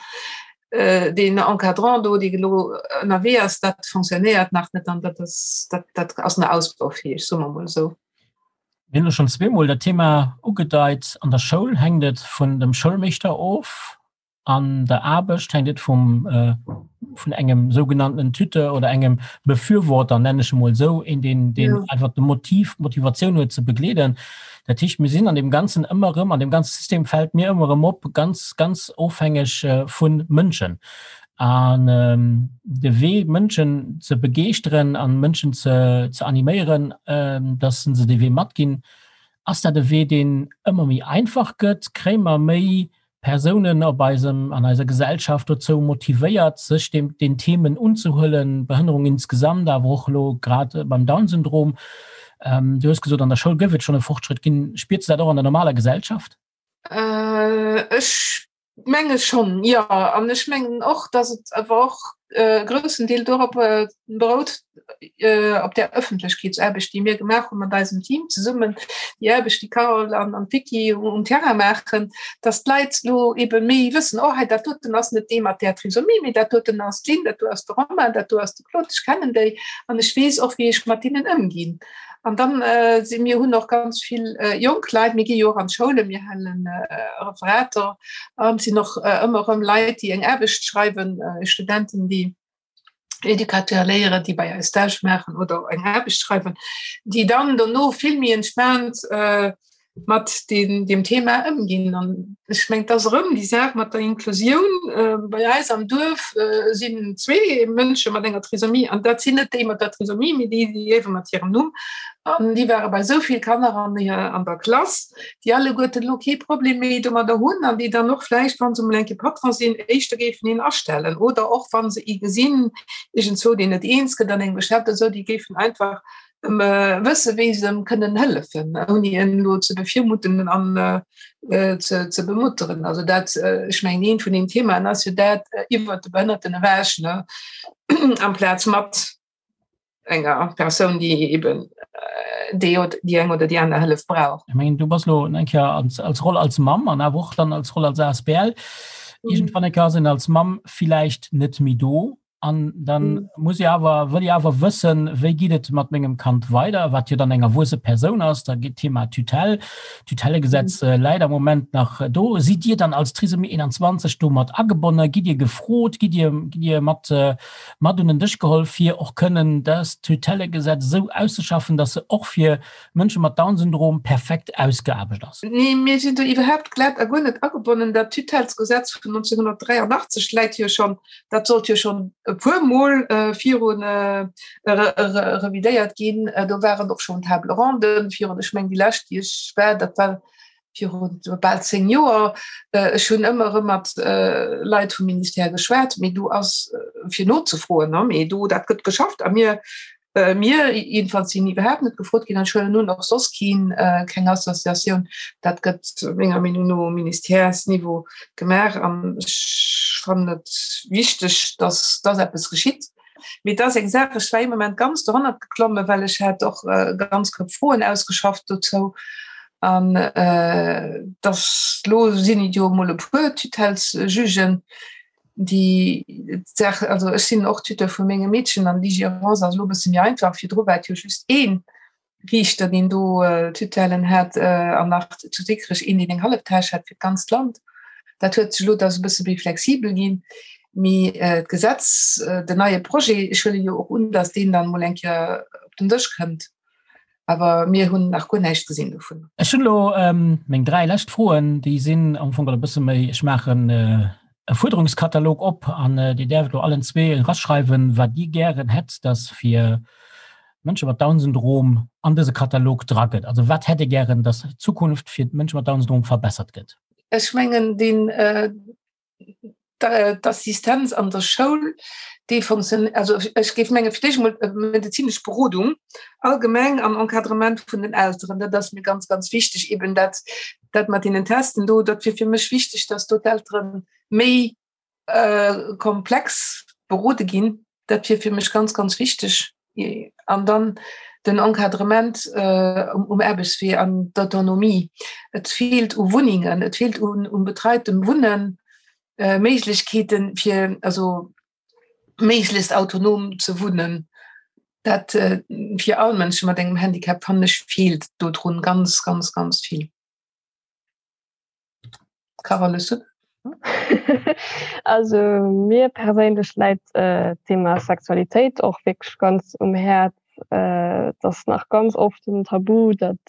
äh, den Encadrant do, dee elo ënnerwee ass, dat fonctionnéiert nach net an dat ass, dat, dat ass nach ausbaufähig, soe mer mol esou. Mir hunn elo schonn zweemol dat Thema ugedeit, An der Schoul hänkt et vun dem Schoulmeeschter of. An der Aarbecht hänkt et vum vun engem sougenannten Tuteur oder engem Befürworter, nennen ech emol esou, een deen deen ja. einfach de Motiv, d'Motivatioun huet ze begleeden. Dat heescht, mir sinn an dem Ganzen ëmmer erëm, an dem ganze System fält mir ëmmer erëm op, ganz ganz ofhängeg äh, vu Mënschen. An ähm, de Wee Mënschen ze begeeschteren an Mënschen ze, ze animéieren, ähm, dass se de Wee matginn, ass dat e Wee, deen ëmmer méi einfach gëtt? Kréie mer méi Persounen op eisem, an eiser Gesellschaft dozou motivéiert, sech dem, den Themen unzehuelen, Behënnerung insgesamt, awer och elo grad beim Down-Syndrom. Du hues gesot, an der Schoul gouf et schonn e Fortschrëtt ginn. Spiers du dat och an der normaler Gesellschaft? Ech menge schonn, jo. An ech mengen och, datt et awer och e groussen Deel dorop berout, op där Ëffentlechkeetsaarbecht, déi mir gemaach hu mat eisem Team zesummen, déi Aarbecht, déi d'Carole an d'Vicky um Terrain maachen, dass d'Leit elo ebe méi wëssen, oh hei dat doten ass net dee mat där Trisomie, mee dat doten ass d'Lynn, dat do ass de Romain, dat do ass de Claude, ech kennen déi an ech weess och, wéi ech mat deenen ëmginn. An dann si mir hunn och ganz vill jonk Leit, mir gi jo och an d'Schoulen, mir hale Referater an et sinn och ëmmer erëm Leit, déi eng Aarbecht schreiwen, Studenten, déi Educateur léieren, déi bei eis Stage maachen oder eng Aarbecht schreiwen, déi dann dono vill méi entspaant äh, mat den, dem Thema ëmginn. An ech meng, dat ass erëm déi Saach mat der Inklusioun. Äh, bei eis am Duerf äh, sinn zwee Mënsche mat enger Trisomie an dat sinn net déi mat der Trisomie, mee déi, déi liewe mat hirem Numm. An déi ware bei esou vill Kanner an, an der Klass, déi alleguerten elo kee Problem méi domadder hunn an déi dann och vläicht, wa se emol eng Kéier Patron sinn, éischter géifen een astellen oder och wa se ee gesinn iergendzwou, deen net eens gëtt an engem Geschäft oder esou, déi géifen einfach wësse wéi se em kënnen hëllefen, ouni en elo ze bevirmutten an ze ze bemutteren. Also dat, ech mengen, eent vun den Themaen ass jo dat iwwert de Behënnerten ewech, ne, amplaz mat. enger Persoun, déi eben déi déi eng oder déi aner Hëllef brauch. Ech mengen, du bass elo eng Kéier als, als Roll als Mamm an awer och dann als Roll als ASBL. Mhm. Iergendwann eng Kéier ass een als Mamm villäicht net méi do an dann mhm. muss ich awer wëll ich awer wëssen, wéi geet et mat mengem Kand weider, wat jo dann eng erwuesse Persoun ass, da geet Thema Tutelle, Tutellegesetz mhm. äh, läit am Moment nach do. Sidd Dir dann als Trisomie 21 do mat agebonne? Gitt Dir gefrot? Gitt Dir, gitt Dir mat äh, mat un den Dësch geholl, fir och kënnen dëst Tutellegesetz esou auszeschaffen, dass se och fir Mënsche mat Down-Syndrom perfekt ausgeaarbecht ass? Nee, mir sinn do iwwerhaapt glat a guer net agebonnen. Dat Tutellesgesetz vun 1983 läit jo schonn, dat sollt jo schonn e puermol viru revidéiert ginn. Do waren och schonn Table ronden virun, ech mengen déi lescht, déi ech war, dat war viru bal 10 Joer. Ech hunn ëmmer erëm mat Leit vum Ministère geschwat, mee do ass fir nozefroen, mee do dat gëtt geschafft a mir mir jedenfalls sinn iwwerhaapt net gefrot ginn an ech huelen un och soss keen, keng Associatioun. Dat gëtt menger Meenung no um Ministèresniveau gemaach an ech fannen et wichteg, datt datt eppes geschitt. Mee et ass eng Saach, ech war ee Moment ganz dohannert geklommen, well ech hat och ganz Koup Froen ausgeschafft dozou. An dass elo sinn et jo emol e puer Tutellesjugen, déi d'Saach, also ech sinn och Tuteur vu mengem Meedchen an déi Gérance ass elo e bësse méi einfach. Virdru war et jo just een Riichter, deen do Tutellen hat an nach zu Dikrech een, deen eng hallef Täsch hat fir d'ganzt Land. Dat huet sech elo, dat ass e bësse méi flexibel ginn. Mee d'Gesetz, den neie Projet, ech huele jo och un, datt deen dann emol eng Kéier op den Dësch kënnt. Awer mir hunn nach guer näischt gesinn dovun. Ech hunn elo meng 3 lescht Froen, déi sinn am Fong e bësse méi, ech maachen e Fuerderungskatalog op an Dir däerft elo allen zwee eraschreiwen, wat Dir gären hätt, datt fir Mënsche mat Down-Syndrom an dëse Katalog dra gëtt. Also wat hätt Dir gären, datt d'Zukunft fir d'Mënsche mat Down-Syndrom verbessert gëtt? Ech mengen, deen d'Assistenz an der Schoul, déi funktioniert, also ech géif menge fir d'éischt emol medezinesch Berodung allgemeng an Encadrement vun den Elteren, dat ass mir ganz, ganz wichteg, eben dat, dat mat deenen Testen do, dat wier fir mech wichteg, dass do d'Eltere méi komplex berode ginn, dat wier fir mech ganz, ganz wichteg. An dann den Encadrement um Aarbechtswee an d'Autonomie. Et feelt u Wunnengen, et feelt un betreitem Wunnen, Méiglechkeeten, fir also méiglechst autonom ze wunnen. Dat fir all Mënsche mat engem Handicap, fannen ech, feelt dodrun ganz, ganz, ganz vill. Carole, hues du? Also mir perséinlech läit d'Thema Sexualitéit och wierklech ganz um Häerz. Et ass nach ganz oft en Tabu, datt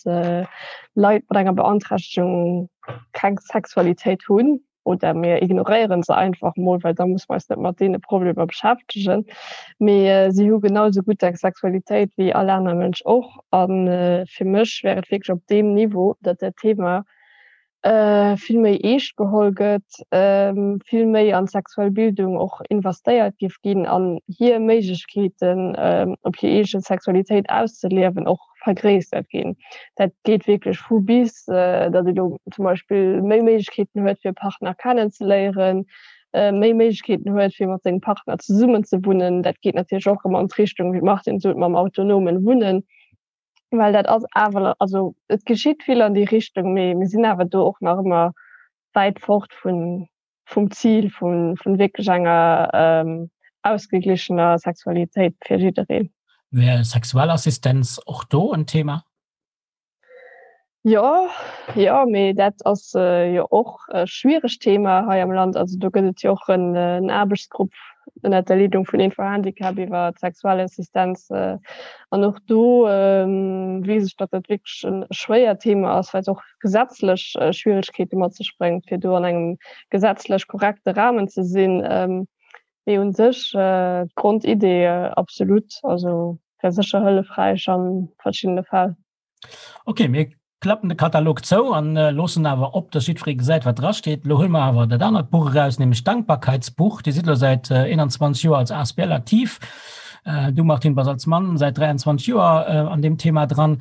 Leit mat enger Beanträchtegung keng Sexualitéit hunn oder mir ignoréiere se einfach mol, well da musse mer eis net mat deene Problemer beschäftegen. Mee si hu genau esou gutt eng Sexualitéit wéi all aner Mënsch och. A fir mech wär et wierklech op deem Niveau, datt dat Thema vill méi eescht geholl gëtt, vill méi an d'sexuell Bildung och investéiert géif ginn an hir Méiglechkeeten op hir eege Sexualitéit auszeliewen och vergréissert ginn. Dat geet wierklech vu bis, datt ee lo zum Beispill méi Méiglechkeeten huet fir e Partner kennenzeléieren, méi Méiglechkeeten huet fir mat sengem Partner zesummen ze wunnen. Dat geet natierlech och ëmmer an d'Richtung, wéi d'Martine sot, mam autonomen Wunnen. Well dat ass awer, also et geschitt vill an déi Richtung, mee mir sinn awer do och nach ëmmer wäit fort vun, vum Zil vun, vun wierklech enger ausgeglichener Sexualitéit fir jiddereen. Wär Sexualassistenz och do en Thema? Jo, jo, mee dat ass jo och e schwieregt Thema hei am Land. Also do gëtt et jo och en Aarbechtsgrupp ënnert der Leedung vun Info-Handicap iwwer d'Sexualassistenz. An och do weess ech, datt dat wierklech e schwéiert Thema ass, well et och gesetzlech Schwieregkeete mat sech bréngt, fir do an engem gesetzlech korrekte Rahmen ze sinn. Mee u sech d'Grondidee absolut, also wär sécher hëllefräich a verschiddene Fäll. Ok, mir klappen de Katalog zou an loossen awer op, dass jiddweree gesäit, wat drasteet. Elo huele mer awer dat anert Buch eraus, nämlech d'Dankbarkeitsbuch. Dir sidd elo säit 21 Joer als asbl aktiv. Du, Martine, bass als Mann säit 23 Joer an deem Thema dran.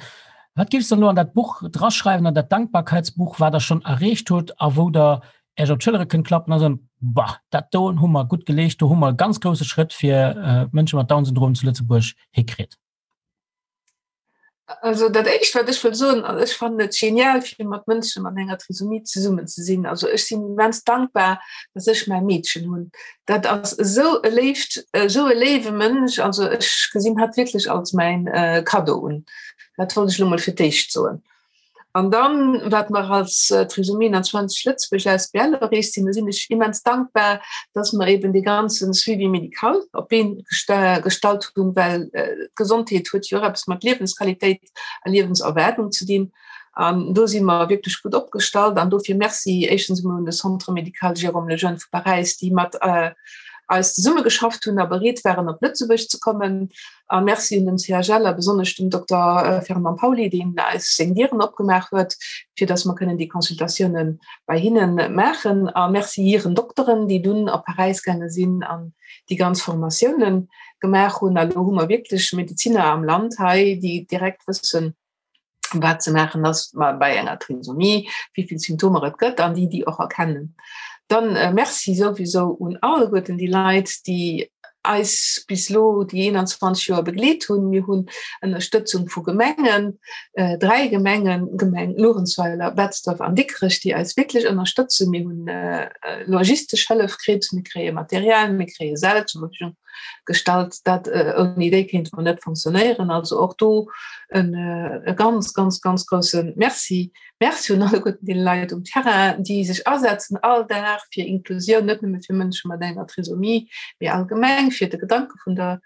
Wat géifs de elo an dat Buch draschreiwen, an dat Dankbarkeitsbuch, wat Der schonn erreecht hutt a wou Der Äech op d'Schëllere kënnt klappen a soen, Bah, dat doen hu mer gutt geleescht, do hu mer e ganz grousse Schrëtt fir d'Mënsche mat Down-Syndrom zu Lëtzebuerg hikritt? Also dat éischt wat ech wëll soen, ech fannen et genial fir mat Mënsche mat enger Trisomie zesummen ze sinn. Also ech sinn immens dankbar, datt ech mäi Meedchen hunn. Dat ass esou e léift, esou e léiwe Mënsch. Also ech gesinn hatt wierklech als mäin Kaddo un. Dat wollt ech elo mol fir d'éischt soen. An dann, wat mer als Trisomie 21 Lëtzebuerg asbl erreecht sinn, do sinn ech immens dankbar, dass mer eben dee ganze Suivi médical op d'Been gestallt hunn, well d'Gesondheet huet jo och eppes mat Liewensqualitéit a Liewenserwaardung ze dinn. An do si mer wierklech gutt opgestallt. An dofir Merci éischtens emol un de Centre médical Jérôme Lejeune vu Paräis, déi mat eis zesummegeschafft hunn a bereet waren, op Lëtzebuerg ze kommen. A Merci un den CHL a besonnesch dem Dokter Fernand Pauly, deen eis seng Dieren opgemaach huet, fir datt mer kënnen déi Consultatioune bei hinne maachen. A Merci hiren Dokteren, déi dunn op Paräis gaange sinn an déi ganz Formatioune gemaach hunn. A lo hu mer wierklech Medezinner am Land hei, déi direkt wëssen, wat ze maachen ass bei enger Trisomie, wéi vill Symptomer et gëtt an déi déi och erkennen. Dann äh, Merci souwisou un alleguerten déi Leit, déi eis bis lo déi 21 Joer begleet hunn. Mir hunn Ënnerstëtzung vu Gemengen, äh, dräi Gemengen, Gemeng Luerenzweiler, Betzdorf an Dikrech, déi eis wierklech ënnerstëtzen. Mir hunn äh, logistesch Hëllef kritt, mir kréie Material, mir kréie Säll zur Verfügung gestallt, dat ouni déi kéinte mer net fonctionnéieren. Also och do en e ganz, ganz, ganz grousse Merci. Merci un alleguerten déi Leit um Terrain, déi sech asetzen all Dag fir Inklusioun, net nëmme fir Mënsche mat enger Trisomie, mee allgemeng fir de Gedanke vun der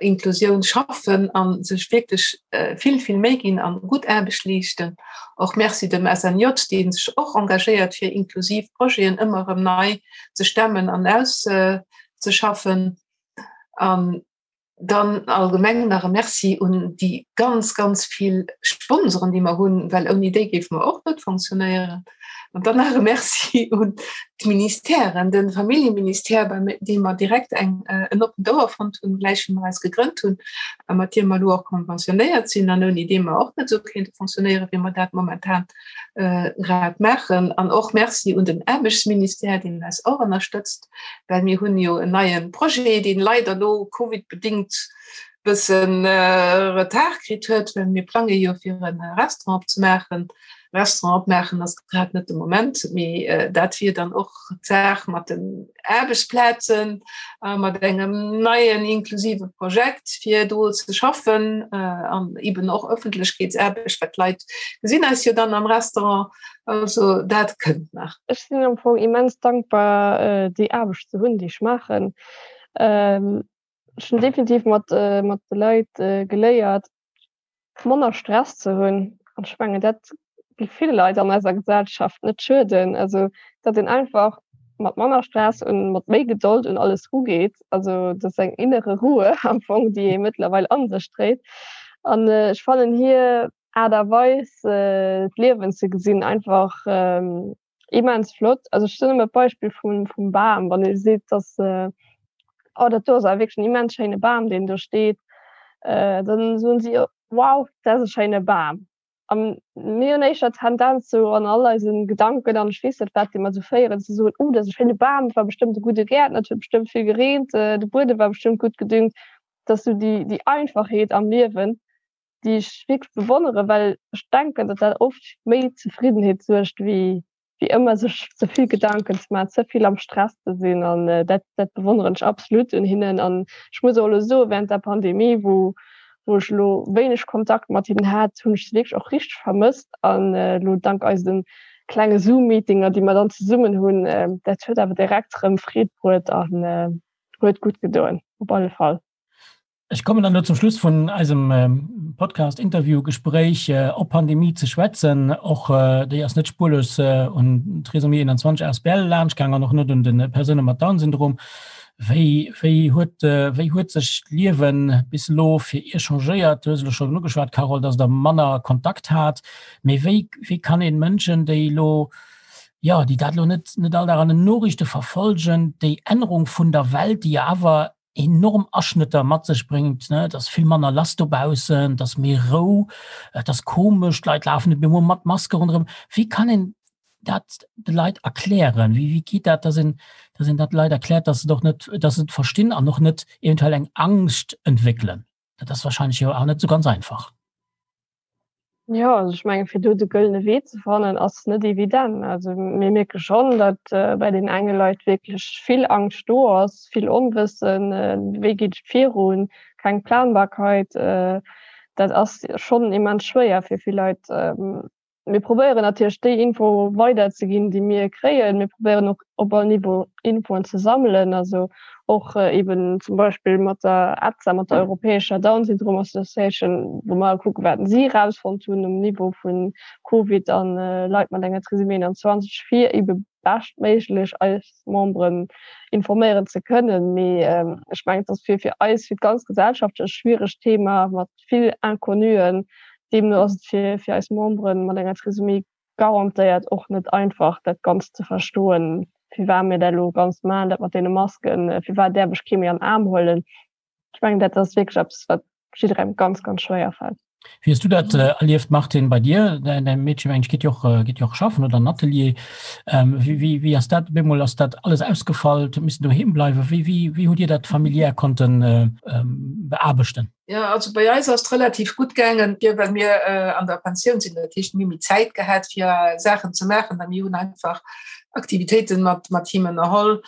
Inklusioun schaffen a sech wierklech vill, vill Méi ginn an gutt Aarbecht leeschten. Och Merci dem SNJ, dee sech och engagéiert fir inklusiv Projeten ëmmer erëm nei ze stemmen an aus ze schaffen. An dann allgemeng nach e Merci un déi ganz, ganz vill Sponsoren, déi mer hunn, well ouni déi géife mer och net fonctionnéieren. An dann nach e Merci un d'Ministèren, de Familljeministère, bei deem mer direkt eng, en oppent Ouer fonnt hunn, gläich wéi mer eis gegrënnt hunn a mat deem mer elo och konventionéiert sinn an ouni dee mer och net esou kéinte fonctionnéieren, wéi mer dat momentan grad maachen. An och Merci un den Aarbechtsministère, deen eis och ënnerstëtzt. Well mir hunn jo en neie Projet, deen leider elo covidbedéngt bëssen Retard kritt huet, well mir plange jo fir e Restaurant opzemaachen. Restaurant opmaachen ass grad net de Moment, mee dat wier dann och d'Saach mat den Aarbechtsplazen a mat engem neien inklusive Projekt fir do ze schaffen an eben och Ëffentlechkeetsaarbecht, well d'Leit gesinn eis jo dann am Restaurant. Also dat kënnt nach. Ech sinn am Fong immens dankbar déi Aarbecht ze hunn, déi ech maachen. Ech hunn definitiv mat mat de Leit geléiert, manner Stress ze hunn. An ech mengen, dat géif ville Leit an eiser Gesellschaft net schueden. Also datt een einfach mat manner Stress un mat méi Gedold un alles rugeet. Also dat ass eng innere Ruhe am Fong, déi ee mëttlerweil a sech dréit. An ech fannen hir Aart a Weis d'Liewen ze gesinn einfach immens flott. Also ech soen ëmmer d'Beispill vum vum Bam, wann ee seet, dass oh dat do ass awer wierklech en immens schéine Bam deen do steet, dann soen si wow dat ass e schéine Bam. A mir hunn éischter d'Tendenz sou an all eise Gedanken an ech weess net wat déi mer sou féieren ze soen, oh dat ass e schéine Bam, dat war bestëmmt e gudde Gäertner, et huet bestëmmt vill gereent, de Buedem war bestëmmt gutt gedüngt. Dat ass sou déi déi Einfachheet am Liewen, déi ech wierklech bewonneren, well ech denken, datt dat oft méi Zefriddenheet suergt, wéi wéi ëmmer sech ze vill Gedanken ze maachen, ze vill am Stress ze sinn. An dat dat bewonneren ech absolut un hinnen. An ech muss och elo soen, während der Pandemie, wou wou ech elo wéineg Kontakt mat hinnen hat, hunn ech se wierklech och richteg vermësst. An elo dank eise klenge Zoom-Meetinger, déi mer dann zesummen hunn, dat huet awer direkt erëm Freed bruet an huet gutt gedoen, op alle Fall. Ech kommen dann elo zum Schluss vun eisem Podcast, Interview, Gespréich op Pandemie ze schwätzen. Och déi ass net spurlos un Trisomie 21 asbl laanschtgaang an och net un de Persoune mat Down-Syndrom. Wéi, wéi huet, wéi huet sech d'Liewe bis elo fir Iech changéiert? Du hues elo schonn ugeschwat, Carole, dass Der manner Kontakt hat. Mee wéi, wéi kann een Mënschen, déi elo, jo, déi dat elo net, net all Dag an den Noriichte verfolgen, déi Ännerung vun der Welt, déi jo awer enorm Aschnëtter mat sech bréngt, ne, et ass vill manner lass dobaussen, et ass méi Rou, et ass komesch, d'Leit lafen net méi emol mat Maske ronderëm. Wéi kann een dat de Leit erklären? Wéi, wéi geet dat, dass een, dass een dat de Leit erkläert, dass se et och net, dass se et verstinn an och net eventuell eng Angscht entwéckelen? Dat ass wahrscheinlech jo awer net esou ganz einfach. Jo, also ech menge fir do de gëllene Wee ze fannen ass net evident. Also mir mierke schonn, datt bei den enge Leit wierklech vill Angscht do ass, vill Onwëssen, wéi geet et virun, keng Planbarkeit. Dat ass schonn immens schwéier fir vill Leit. Mir probéieren natierlech déi Info weiderzeginn, déi mir kréien. Mir probéieren och op all Niveau Infoen ze sammelen, also och eben zum Beispill mat der EDSA, mat der europäescher Down Syndrome Association, wou mer kucken, wat si erausfonnt hunn um Niveau vu Covid an Leit mat enger Trisomie 21, fir ebe beschtméiglech eis Memberen informéieren ze kënnen. Mee ech mengen, et ass fir fir eis, fir d'ganz Gesellschaft e schwieregt Thema mat vill Inconnuen. Deemno ass et fir fir eis Memberen mat enger Trisomie garantéiert och net einfach, dat Ganzt ze verstoen, firwat mir dat elo ganz maachen, dat mat deene Masken, firwat däerf ech kee méi an den Aarm huelen. Ech mengen, dat ass wierklech eppes, wat jidderengem ganz, ganz schwéier fält. Wéi hues du dat erlieft, Martine, bei dir? Däin Meedche, meng ech, geet jo och, geet jo och schaffen oder an Atelier. Wéi, wéi, wéi ass dat op eemol, ass dat alles ausgefall, huet missen doheem bleiwen? Wéi, wéi, wéi hutt Dir dat familiär konnten beaarbechten? Ja, also bei eis ass relativ gut gaangen, fir well mir äh, an der Pensioun sinn, dat heescht mir méi Zäit gehat fir Saachen ze maachen, an mir hunn einfach Aktivitéiten mat mat him ënnerholl,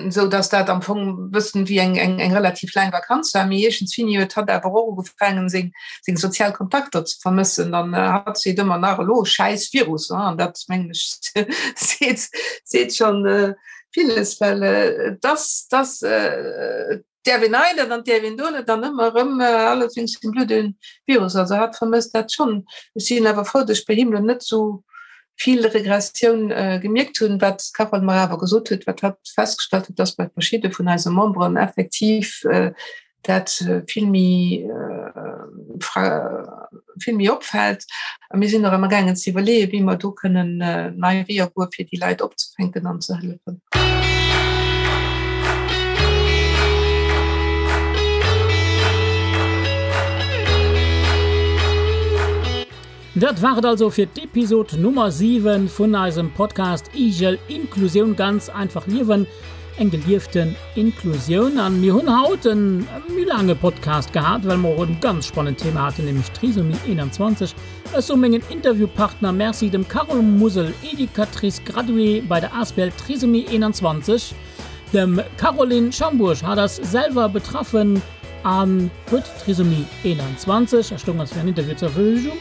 sou dass dat am Fong bëssen wéi eng eng eng relativ laang Vakanz war. Mee iergendswéini huet hatt awer och ugefaangen seng seng sozial Kontakter ze vermëssen an äh, hatt seet ëmmer nach elo schäiss Virus, an dat mengen ech seet seet schonn äh, villes, well äh, dass dass äh, Däerf een hei net an däerf een do net an ëmmer erëm alles wéinst dem blöde Virus. Also hatt vermësst dat schonn. Ech sinn awer frou, datt ech bei him elo net esou vill Regressioun gemierkt hunn. Wat d'Carole mer awer gesot huet, wat hatt festgestallt huet, datt bei verschidde vun eise Memberen effektiv dat vill méi vill méi opfält. A mir sinn och amgaangen ze iwwerleeën, wéi mer do kënnen nei Weeër goen, fir déi Leit opzefänken an ze hëllefen. Dat war et also fir d'Episod Nummer 7 vun eisem Podcast Igel Inklusioun ganz einfach liewen, eng gelieften Inklusioun. An mir hunn haut en méi laange Podcast gehat, well mer och en ganz spannend Thema haten, nämlech Trisomie 21. Ech soe mengen Interviewpartner Merci, dem Carole Musel, Educatrice graduée bei der Asbl Trisomie 21, dem Caroline Schambourg, hat ass selwer betraffen an huet Trisomie 21 a stoung eis fir en Interview zur Verfügung,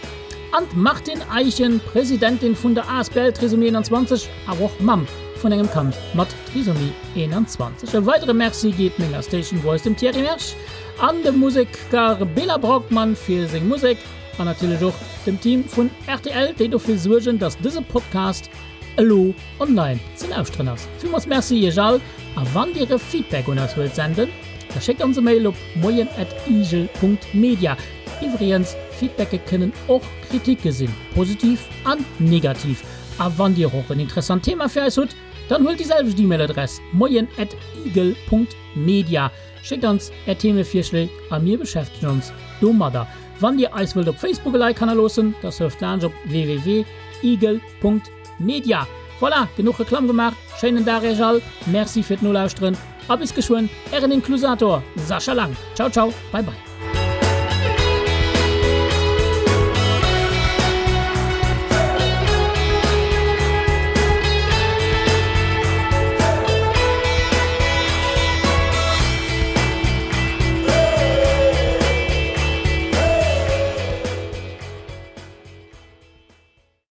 an d'Martine Eischen, Presidentin vun der Asbl Trisomie 21, awer och Mamm vun engem Kand mat Trisomie 21. E weidere Merci geet menger Station Voice, dem Thierry Mersch, an dem Museker Bela Braukmann fir seng Musek. An natierlech och dem Team vun rtl, déi dofir suergen, dass dëse Podcast elo online ze lauschteren ass. Villmools Merci iech all a wann dir e Feedback un eis wëllt senden, da schéckt ons e Mail op moien@igel.media. Iwwregens, Feedbacke kënnen och Kritike sinn, positiv an negativ. A wann dir och en interessant Thema fir eis hutt, dann huelt déi selwecht E-Mail-Adress, moien@igel.media, schéckt ons är Themevirschléi a mir beschäftegen ons domadder. Wann dir eis wëllt op Facebook e Like hannerloossen, da surft laanscht op www.igel.media. Voilà, genuch Reklamm gemaach, schéinen Dag iech all, Merci fir d'Nolauschteren a bis geschwënn, ären Inklusator Sascha Lang. Ciao ciao, bye bye.